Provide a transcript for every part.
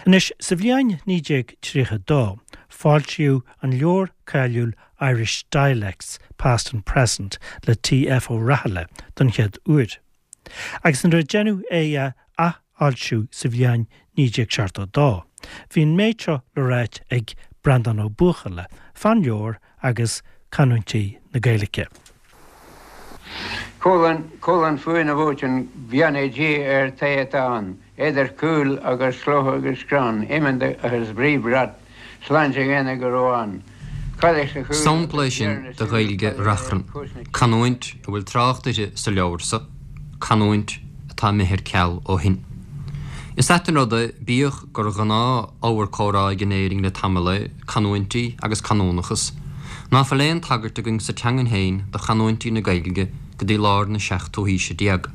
Anois, sa bhliain 1932, foilsíodh an leabhar cáiliúil Irish Dialects, Past and Present le T.F. Ó Rathaille don chéad uair. Agus nuair a deineadh é a athfhoilsiú sa bhliain 1972, bhí an méid seo le ráit ag Breandán Ó Buachalla fán leabhar agus canúintí na Gaeilge. Cúl an fuath na bhfóiteann beannaí Dia ar té atá ann, Idir chúil agus chloch agus chrann, iomann agus brí brat, sláinte dhaonna go raibh ann. Cailleach sa chúl Sampla é agus sin deireadh na de súl Ghaeilge cailleach Reachrann, ar cúis na cine. canúint a bhfuil trácht uirthi sa leabhar so, canúint atá imithe ar ceal ó shin. Is ait an rud é, bíodh gur ghnáth-ábhar comhrá againn in Éirinn le tamall é canúintí agus canúnachas, ná fuil aon tagairt againn sa teangain féin do chanúintí na Gaeilge go dtí lár na seachtú haoise déag.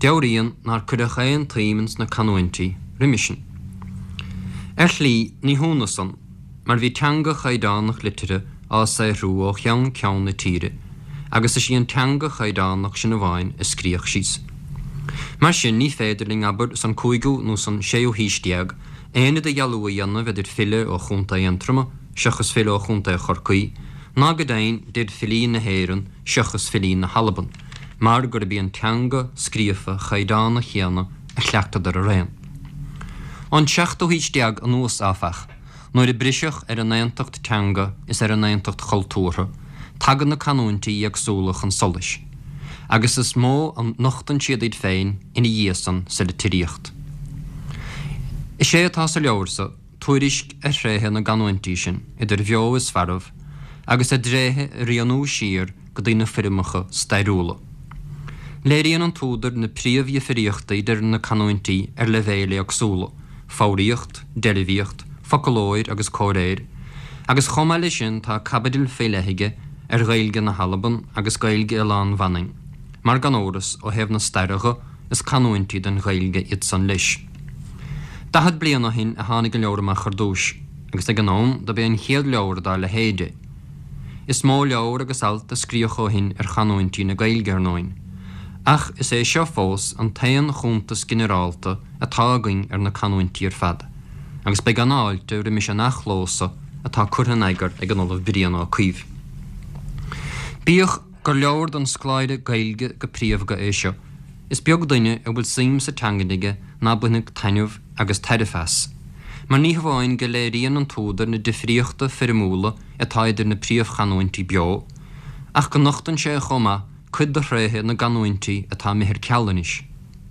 Deabhraíonn nár cuireadh aon tsuim ins na canúintí roimhe sin. Ar shlí, ní hionadh san, mar bhí teanga chaighdeánach liteartha á saothrú ó cheann ceann na tíre agus is í an teanga chaighdeánach sin amháin a scríodh síos. Mar sin, ní féidir linn, abair, san cúigiú nó san séú haois déag, aon idirdhealú a dhéanamh idir file ó Chontae Aontroma seachas file ó Chontae Chorcaí, ná go deimhin idir filí na hÉireann seachas filí na hAlban, mar gurb í an teanga scríofa chaighdeánach chéanna a chleachtadar araon. Ón seachtú haois déag anuas, áfach, Nuair a briseadh ar an aontacht teanga is ar an aontacht chultúrtha, tagann na canúintí éagsúla chun solais, agus is mó a nochtann siad iad féin ina dhiaidh san sa litríocht. Is é atá sa leabhar so tuairisc ar thréithe na gcanúintí sin, idir bheo is mharbh, agus a dtréithe a rianú siar go dtí na foirmeacha stairiúla. Léiríonn an t-údar na príomhdhifríochtaí idir na canúintí ar leibhéil éagsúla, foghraíocht, deilbhíocht, foclóir agus comhréir, agus chomh maith leis sin tá caibidil faoi leith aige ar Ghaeilge na hAlban agus Gaeilge Oileán Mhanainn, mar gan amhras, ó thaobh na staire dho, is canúintí den Ghaeilge iad san leis. 40 bliain ó shin a tháinig an leabhar amach ar dtúis, agus ag an am dob é an chéad leabhar dá leithéid é. Is mó leabhar agus alt a scríodh ó shin ar chanúintí na Gaeilge, ar ndóin, ach is é seo fós an t-aon chuntas ginearálta atá againn ar na canúintí ar fad, agus beidh an-fháilte roimis an athchló so atá curtha in eagar ag an Ollamh Brian Ó Cuív. Bíodh gur leabhar don scoláire Gaeilge go príomhdha é seo, is beag duine a bhfuil suim sa teangain aige ná bainfeadh taitneamh agus tairbhe as, mar ní hamháin go léiríonn an t-údar na difríochta foirmiúla atá idir na príomhchanúintí beo, ach go nochtann sé chomh maith cuid de thréithe na gcanúintí atá imithe ar ceal anois,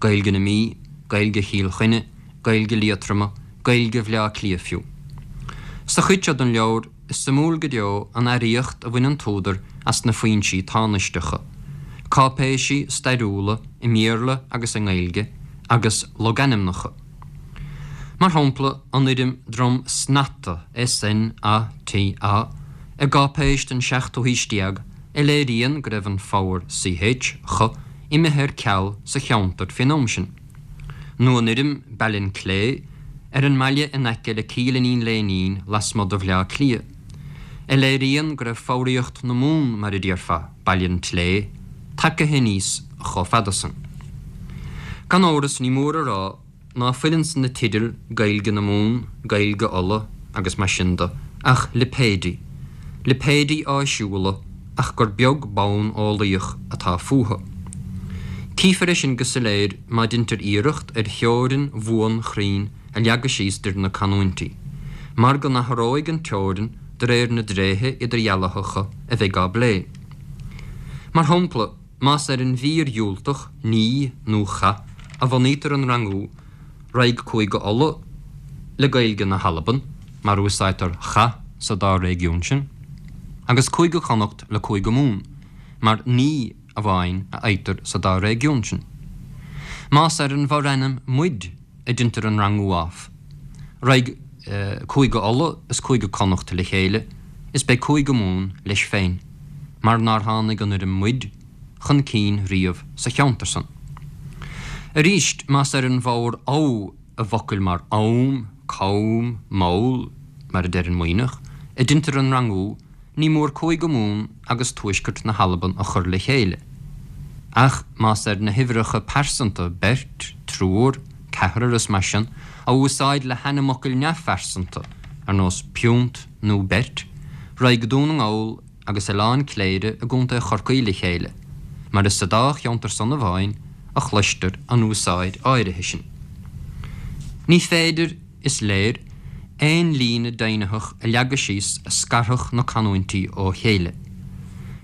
Gaeilge na Mí, Gaeilge Chill Chainnigh, Gaeilge Liatroma, Gaeilge Bhaile Átha Cliath fiú. Sa chuid seo den leabhar, is suimiúil go deo an earraíocht a bhain an t-údar as na foinsí tánaisteacha, cáipéisí stairiúla i mBéarla agus i nGaeilge, agus logainmneacha. Mar shampla, an fhoirm Drumsnata, S-N-A-T-A, i gcáipéis den seachtú haois déag a léiríonn go raibh an foghar ch, cho, imithe ar ceal sa cheantar faoin am sin. Nó an fhoirm Ballinclea ar an mbaile in aice le Cill Iníon Léinín lasmuigh de Bhaile Átha Cliath, a léiríonn go raibh foghraíocht na Mumhan, mar a déarfá, Baile an tSlé, tagtha aníos chomh fada san. Gan amhras ní mór a rá ná fuil ins na teidil Gaeilge na Mumhan, Gaeilge Uladh agus mar sin de ach lipéidí, lipéidí áisiúla ach gur beag bonn eolaíoch atá fúthu. Cífear é sin go soiléir má deintear iarracht ar theorainn bhuan chruinn a leagadh síos idir na canúintí, mar go n-athróidh an teorainn de réir na dtréithe idirdhealaitheacha a bheidh á bplé. Mar shampla, más ar an mhír dhiúltach ní nó cha a bhunaítear an rangú, raghaidh Cúige Uladh le Gaeilge na hAlban, mar úsáidtear cha sa dá réigiún sin, agus Cúige Chonnacht le Cúige Mumhan, mar ní amháin a fhaightear sa dá réigiún sin. Más ar an bhforainm muid a deintear an rangú ámh, raghaidh Cúige Uladh is Cúige Connacht le chéile is beidh Cúige Mumhan leis féin, mar nár tháinig an fhoirm muid chun cinn riamh sa cheantar san. Arís, más ar an bhfoghar amh i bhfocail mar am, cam, mall, mar a deir an Muimhneach, a deintear an rangú, ní mór Cúige Mumhan agus tuaisceart na hAlban a chur le chéile. Ach más ar na huimhreacha pearsanta, beirt, triúr, ceathrar is mar sin, Á úsáid le hainmfhocail neamhphearsanta, ar nós piúnt nó beirt, raghaidh Dún na nGall agus Oileán Cléire i gContae Chorcaí le chéile, mar is sa dá cheantar san amháin a chloistear an úsáid áirithe sin. Ní féidir, is léir, aon líne deimhnitheach a leagadh síos a scarfadh na canúintí ó chéile.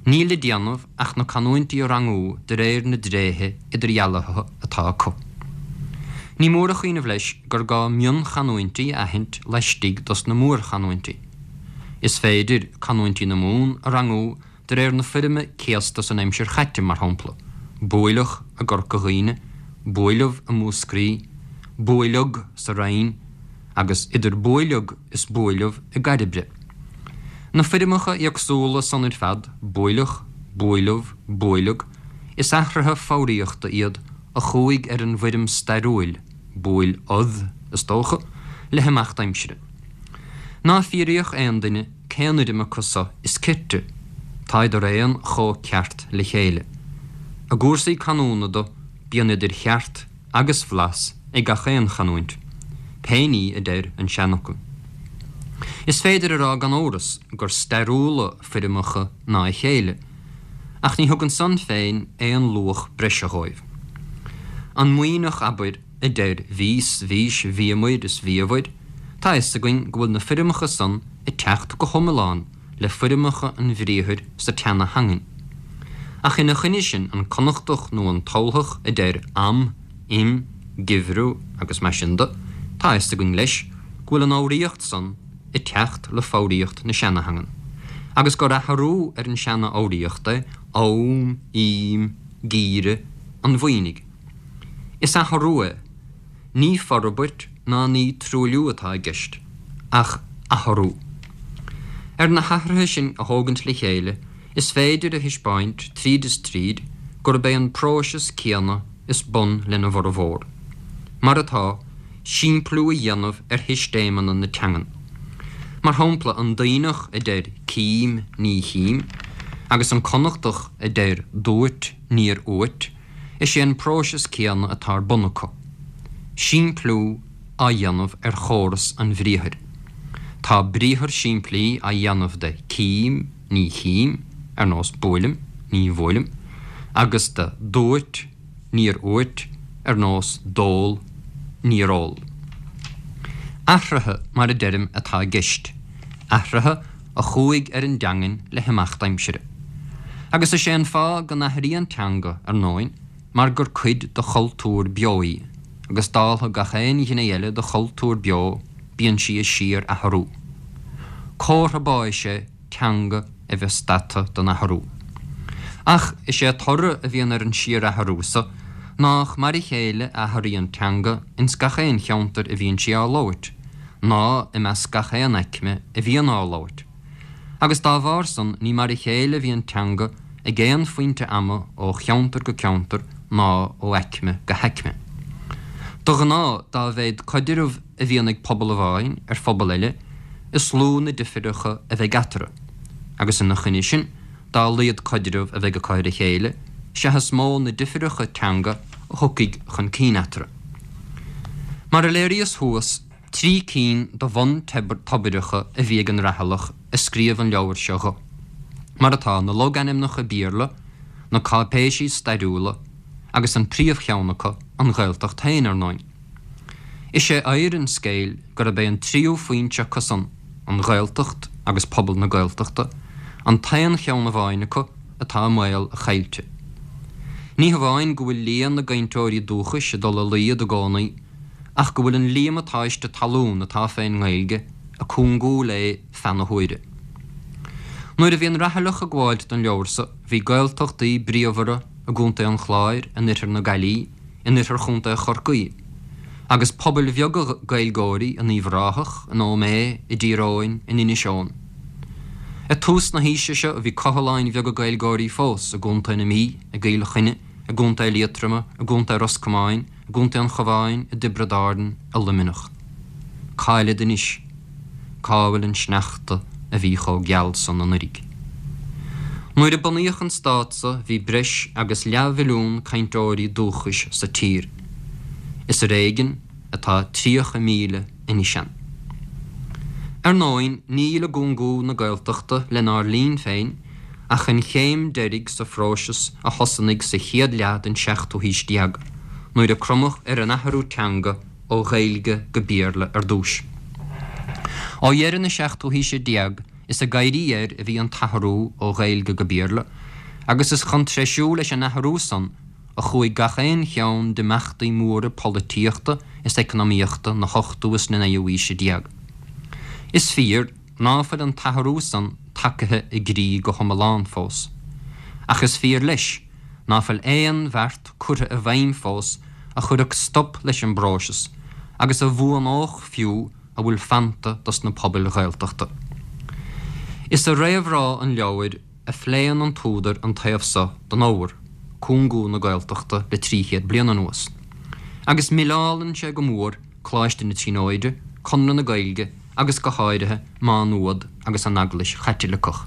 Níl le déanamh ach na canúintí a rangú de réir na dtréithe idirdhealaitheacha atá acu. Ní mór a chuimhneamh leis gur gá mionchanúintí a aithint laistigh dos na mórchanúintí. Is féidir canúintí na Mumhan a rangú de réir na foirme céasta san aimsir chaite, mar shampla, buaileach i gCorca Dhuibhne, buaileamh i Múscraí, buaileag sa Rinn, agus idir buaileag is buaileamh i gCairbre. Na foirmeacha éagsúla san ar fad, buaileach, buaileamh, buaileag, is athruithe foghraíochta iad a chuaigh ar an bhfoirm stairiúil, buail-odh, is dócha, le himeacht aimsire. Ná fiafraíodh aon duine cén fhoirm acu so is cirte, táid araon chomh ceart le chéile. I gcúrsaí canúna do, bíonn idir cheart agus bhlas ag gach aon chanúint, pé ní a deir an seanfhocal. Is féidir a rá gan amhras gur stairiúla foirmeacha ná a chéile, ach ní thugann san féin aon luach breise dhóibh. An Muimhneach, abair, a deir bhíos, bhís, bhíomair is bhíobhair, tá fhios againn go bhfuil na foirmeacha san ag teacht go hiomlán le foirmeacha an bhriathair sa tseana-theangain. Ach ina choinne sin, an Connachtach nó an tUltach a deir am, im, geimhreadh agus mar sin de, tá fhios againn leis go bhfuil an fhoghraíocht san ag teacht le foghraíocht na seana-theangan, agus gur athrú ar an seana-fhoghraíocht é am, ím, geimhreadh an Mhuimhnigh. Is athrú é. Ní forbairt ná ní truailliú atá i gceist, ach athrú. Ar na hathruithe sin a thógaint le chéile, is féidir a thaispeáint tríd is tríd gurb é an próiseas céanna is bun lena bhformhór. Mar atá, simpliú a dhéanamh ar shistéimeanna na teangan. Mar shampla, an Duibhneach a deir cím, ní chím, agus an Connachtach a deir dúirt, níor úirt, Is é an próiseas céanna atá ar bun acu. Simpliú á dhéanamh ar chóras an bhriathair. Tá briathar simplí á dhéanamh de cím, ní chím, ar nós buailim, ní bhuailim, agus de dúirt, níor úirt, ar nós d'ól, níor ól. Athruithe, mar a deirim, atá i gceist. Athruithe a chuaigh ar an dteangain le himeacht aimsire. Agus is é an fáth go n-athraíonn teanga, ar ndóin, mar gur cuid de chultúr beo í, agus dáltha gach aon ghné eile de chultúr beo, bíonn sí ag síor-athrú. Comhartha báis é teanga a bheith stadta den athrú. Ach is é toradh a bhíonn ar an síor-athrú so nách mar a chéile a athraíonn teanga ins gach aon cheantar a bhíonn sí á labhairt, ná i measc gach aon aicme a bhíonn á labhairt. Agus dá bharr san ní mar a chéile a bhíonn teanga ag aon phointe ama ó cheantar go ceantar ná ó aicme go haicme. De ghnáth dá mhéad coidreamh a bhíonn ag pobal amháin ar phobal eile is lú na difreacha a bheidh eatarthu, agus ina choinne sin dá laghad coidreamh a bheidh acu ar a chéile sea is mó na difreacha teanga a thiocfaidh chun cinn eatarthu. Mar a léiríos thuas, 3 cinn de bhun-toibreacha a bhí ag an Rathailleach a scríobh an leabhar seo dho, mar atá, na logainmneacha Béarla, na cáipéisí stairiúla, agus an príomhcheann acu, an Ghaeltacht féin, ar ndóin. Is é oidhre an scéil gurb é an tríú foinse acu san, an Ghaeltacht agus pobal na Gaeltachta, an t-aon cheann amháin acu atá i mbaol a chaillte. Ní hamháin go bhfuil líon na gcainteoirí dúchais ag dul i laghad i gcónaí, ach go bhfuil an líomatáiste talún atá fén nGaeilge ag cúngú léi feadh na huaire. Nuair a bhí an Rathailleach ag gabháilt don leabhar so, bhí Gaeltachtaí bríomhara i gContae an Chláir, in oirthear na Gaillí, in oirthear Chontae Chorcaí, agus pobail bheaga Gaeilgeoirí in Uíbh Ráthach, in Ó Méith, i dTír Eoghain, in Inis Eoghain. Ag tús na haoise seo bhí cothaláin bheaga Gaeilgeoirí fós i gContae na Mí, i gCill Chainnigh, i gContae Liatroma, i gContae Ros Comáin, i gContae an Chabháin, i dTiobraid Árann, i Luimneach. Cá'il anois? Cá bhfuil an sneachta a bhí chomh geal san anuiridh? Nuair a bunaíodh an stát so bhí breis agus leathmhilliún cainteoirí dúchais sa tír. Is ar éigean. atá 30 míle anois ann. Ar ndóin, níl i gcúngú na Gaeltachta lenár linn féin ach an chéim deiridh sa phróiseas a thosnaigh sa chéad leath den seachtú haois déag, nuair a cromadh ar an athrú teanga ó Ghaeilge go Béarla ar dtús. Ó dheireadh na seachtú haoise déag is ag éirí air a bhí an t-athrú ó Ghaeilge go Béarla, agus is chun treisiú leis an athrú san a chuaigh gach aon cheann d'imeachtaí móra polaitíochta is eacnamaíochta na hochtú is na naoú haoise déag. Is fíor ná fuil an t-athrú san tagaithe i gcrích go hiomlán fós. Ach is fíor leis ná fuil aon bheart curtha i bhfeidhm fós a chuirfeadh stop leis an bpróiseas agus a bhuanódh fiú a bhfuil fanta dos na pobail Ghaeltachta. Is i réamhrá an leabhair a phléann an t-údar an taobh so den ábhar, cúngú na Gaeltachta le 300 bliain anuas, agus milleálann sé go mór Coláiste na Tríonóide, Conradh na Gaeilge agus go háirithe Má Nuad agus an Eaglais Chaitliceach.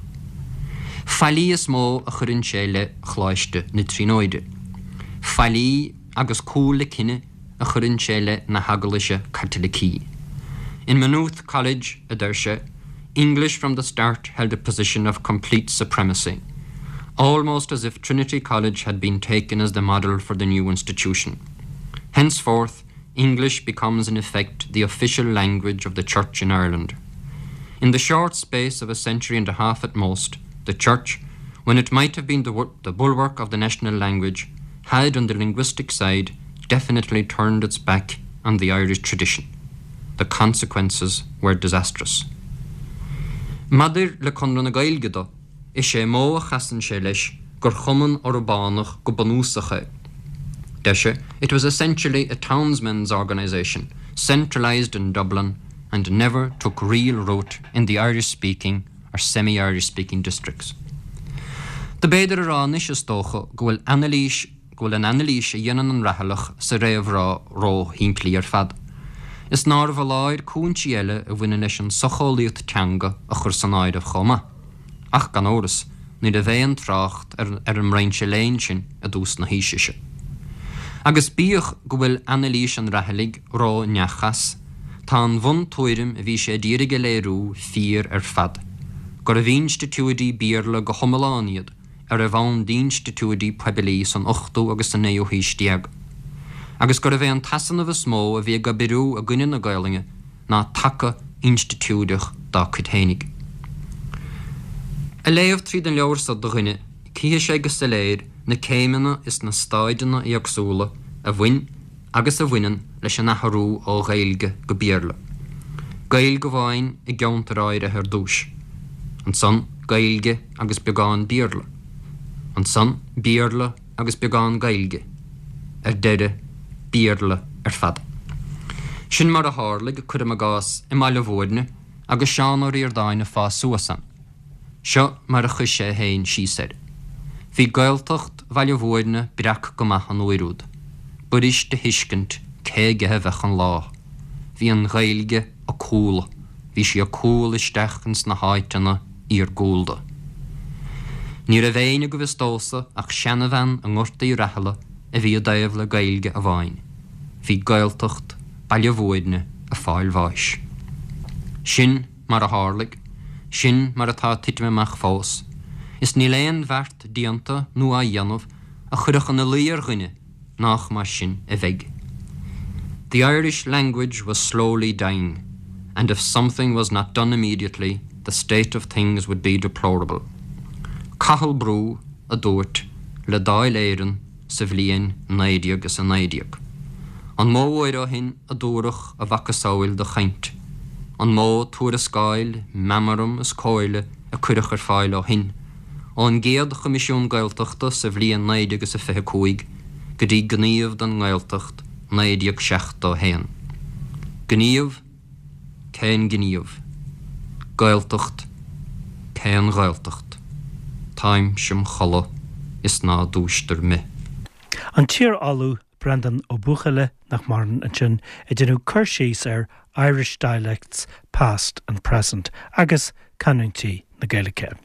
Faillí is mó a chuireann sé i leith Choláiste na Tríonóide. Faillí agus cúl le cine a chuireann sé i leith na hEaglaise Caitlicí. In Maynooth College, a deir sé, English from the start held a position of complete supremacy, almost as if Trinity College had been taken as the model for the new institution. Henceforth, English becomes in effect the official language of the Church in Ireland. In the short space of a century and a half at most, the Church, when it might have been the, the bulwark of the national language, had on the linguistic side definitely turned its back on the Irish tradition. The consequences were disastrous. Maidir le Conradh na Gaeilge do, is é modh a chasann sé leis gur chumann urbánach go bunúsach é. Deir sé, it was essentially a townsmen's organisation, centralised in Dublin and never took real root in the Irish-speaking or semi-Irish-speaking districts. Do b'fhéidir a rá anois is dócha go bhfuil anailís go bhfuil an anailís a dhéanann an Rathailleach sa réamhrá ró-shimplí ar fad, is nárbh fholáir cúinsí eile a bhaineann leis an socheolaíocht teanga a chur san áireamh chomh maith. Ach, gan amhras, ní raibh aon trácht ar ar an mbrainse léinn sin i dtús na haoise seo. Agus bíodh go bhfuil anailís an Rathailligh ró-neachas, tá an bhuntuairim a bhí sé a d'iarraidh a léiriú fíor ar fad, gurbh institiúidí Béarla go hiomlán iad a raibh ann d'institiúidí poiblí san ochtú agus sa naoú haois déag, agus gurbh é an t-easanamh is mó a bhí ag oibriú i gcoinne na Gaelainne ná taca institiúideach dá cuid fhéinig. Ag léamh tríd an leabhar so do dhuine, cífidh sé go soiléir na céimeanna is na stáideanna éagsúla a bhain agus a bhaineann leis an athrú ó Ghaeilge go Béarla. Gaeilge amháin i gceantair áirithe ar dtús. Ansan Gaeilge agus beagán Béarla. Ansan Béarla agus beagán Gaeilge. Ar deireadh, Béarla ar fad. Sin mar a tharlaigh, cuirim i gcás, i mBaile Bhúirne agus Seán Ó Ríordáin ag fás suas ann. Seo mar a chuir sé féin síos air. Bhí Gaeltacht Bhaile Bhúirne breac go maith an uair úd. B'fhuirist a thuiscint cé aige a bheadh an lá. Bhí an Ghaeilge ag cúlú, bhí sí ag cúlú isteach ins na háiteanna iargúlda. Ní raibh éinne go bhfios domhsa ach seanabhean i nGort Uí Rathaille a bhí i dtaobh le Gaeilge amháin. Bhí Gaeltacht Baile Bhúirne ag fáil bháis. Sin mar a tharlaigh, sin mar atá ag titim amach fós, is níl aon bheart déanta nó á dhéanamh a chuirfeadh ina luí ar dhuine nách mar sin a bheidh. The Irish language was slowly dying, and if something was not done immediately, the state of things would be deplorable. Cathal Brugha a dúirt le Dáil Éireann sa bhliain 1919. An mó uair ó shin a dúradh a mhacasamhail de chaint? An mó tuarascáil, meamram is comhairle a cuireadh ar fáil ó shin, ón gcéad Choimisiún Gaeltachta sa bhliain 1925 go dtí Gníomh don nGaeltacht 1971? Gníomh? Cén gníomh? Gaeltacht? Cén Ghaeltacht? Táimse im chodladh is ná dúistear me. An t-iar-ollamh Breandán Ó Buachalla, nach maireann, ansin ag déanamh cur síos ar Irish Dialects Past and Present agus canúintí na Gaeilge.